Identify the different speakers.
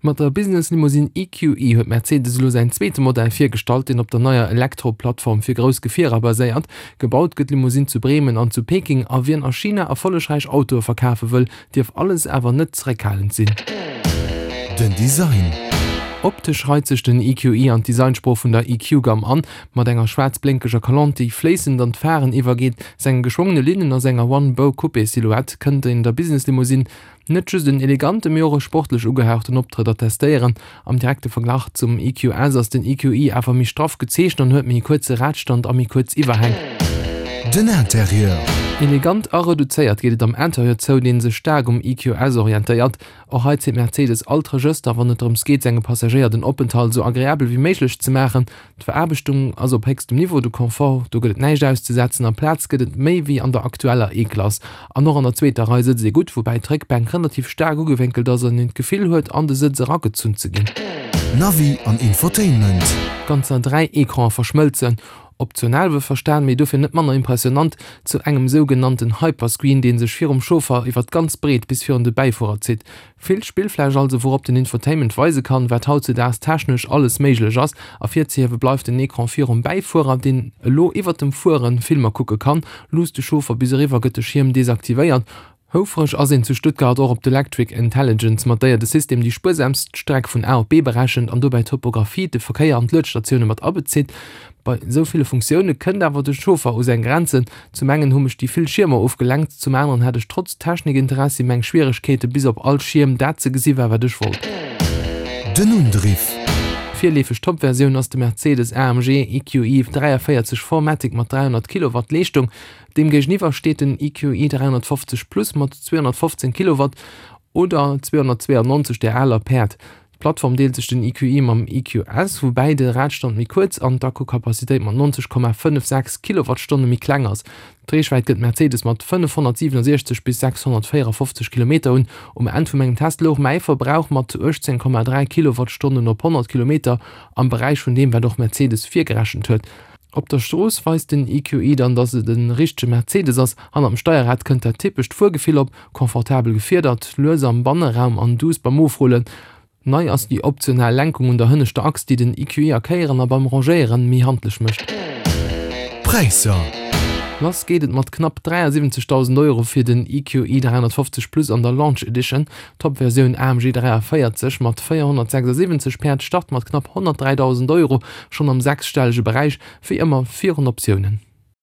Speaker 1: Mat der Business Limousine EQE huet Mercedes elo säin zweete Modell virgestallt, deen op der neier Elektro-Plattform fir grouss Gefierer baséiert. Gebaut gëtt d'Limousine zu Bremen an zu Peking a wien a China erfollegräich Autoe verkafe wëll, dierf alles awer net zeréckhalend sinn.
Speaker 2: Den Design.
Speaker 1: Optesch reit sech den EQE an d'Designsprooch vun der EQ-Gamm an, mat enger schwaarz-blénkeger Kalont, déi fléissend an d'Pharen iwwergeet, senge geschwongene Linnen a senger One-Bow-Coupé-Silhouette kënnt een der Business-Limousine Net just en elegante, mee och e sportlech ugehauchten Optrëtt attestéieren. Am direkte Verglach zum EQS ass den EQE awer méi straff gezeechent an huet méi e kuerze Radstand a méi kuerz Iwwerhäng.
Speaker 2: Den Interieur.
Speaker 1: Elegant a reduzéiert geet et am Interieur zou, dee sech staark um EQS orientéiert. Och hei zitt Mercedes all d'Regëster, wann et drëms geet, senge Passagéier den Openthalt esou agreabel wéi méiglech ze maachen. D'Veraarbechtung ass op héchstem Niveau, de Confort, do gëtt et näischt auszesetzen a Plaz gëtt et méi wéi an der aktueller E-Klass. An och an der zweeter Rei sëtzt ee gutt, woubäi d'Réckbänk relativ staark ugewénkelt ass an een d'Gefill huet an de Sëtz eragezunn ze ginn.
Speaker 2: Navi an Infotainment.
Speaker 1: Ganzer 3 Ecranen verschmëlzen, optional wuelverstan, mee dofir net manner impressionant, zu engem sougenannten Hyperscreen, dee sech virum Chauffer iwwer d'ganz Breet bis virun de Bäifuerer zitt. Vill Spillfläch also, wourop den Infotainment weise kann, wat hautzedaags technesch alles méiglech ass. Ervirzehiewe bleift den Ecran virum Bäifuerer, deen elo iwwert dem Fuere Filmer kucke kann. Luusst de Chauffer bis eriwwer, gëtt de Schierm desaktivéiert. Houfreg ass een zu Stuttgart och op d'Electric Intelligence, mat déier de System déi spuersamst Streck vun A op B berechent an dobäi d'Topographie, de Verkéier an d'Luedstatioune mat abezitt. Bei esou ville Funktioune kënnt awer de Chauffer u seng Grenzen. Zum engen hu mech déi vill Schiermer ofgelenkt, zum aneren hat ech trotz Technikinteressi meng Schwieregkeete bis op all Schierm dat ze gesi war wat ech wollt.
Speaker 2: Den Undriff.
Speaker 1: Virleefeg Toppversioun ass de Mercedes AMG EQE 43 4MATIC mat 300 Kilowatt Leeschtung. Deem géigeniwwer steet den EQE 350 Plus mat 215 Kilowatt oder 292 der aler Päerd. D'Plattform deelt sech den EQE mam EQS, woubäi de Radstand méi kuerz an d'Akkukapazitéit mat 90,56 Kilowattstonne méi kleng ass. D'Reechwäit gëtt Mercedes mat 567 bis 654 Kilometer un. Um Enn vu mengem Test louch mäi Verbrauch mat 18,3 Kilowattstonnen op 100 Kilometer am Beräich vun deem, wat och Mercedes virgerechent huet. Op der Strooss weist den EQE dann, dass et e richtege Mercedes ass. Hannert dem Steierrad kënnt dat typescht Fuergefill op, confortabel gefiedert, lues am Banneraum an duuss beim Ofrullen. Nei ass déi optional Lenkung un der hënneschter Achs, déi den EQE a Kéieren a beim Rangéieren méi handlech mécht.
Speaker 2: D'Präisser.
Speaker 1: Lass geet et mat knapp 73.000 Euro fir den EQE 350 Plus an der Launch Edition. D'Top-Versioun AMG 43 mat 476 Päerd start mat knapp 103.000 Euro, schonn am sechsstellege Beräich, wéi ëmmer virun Optiounen.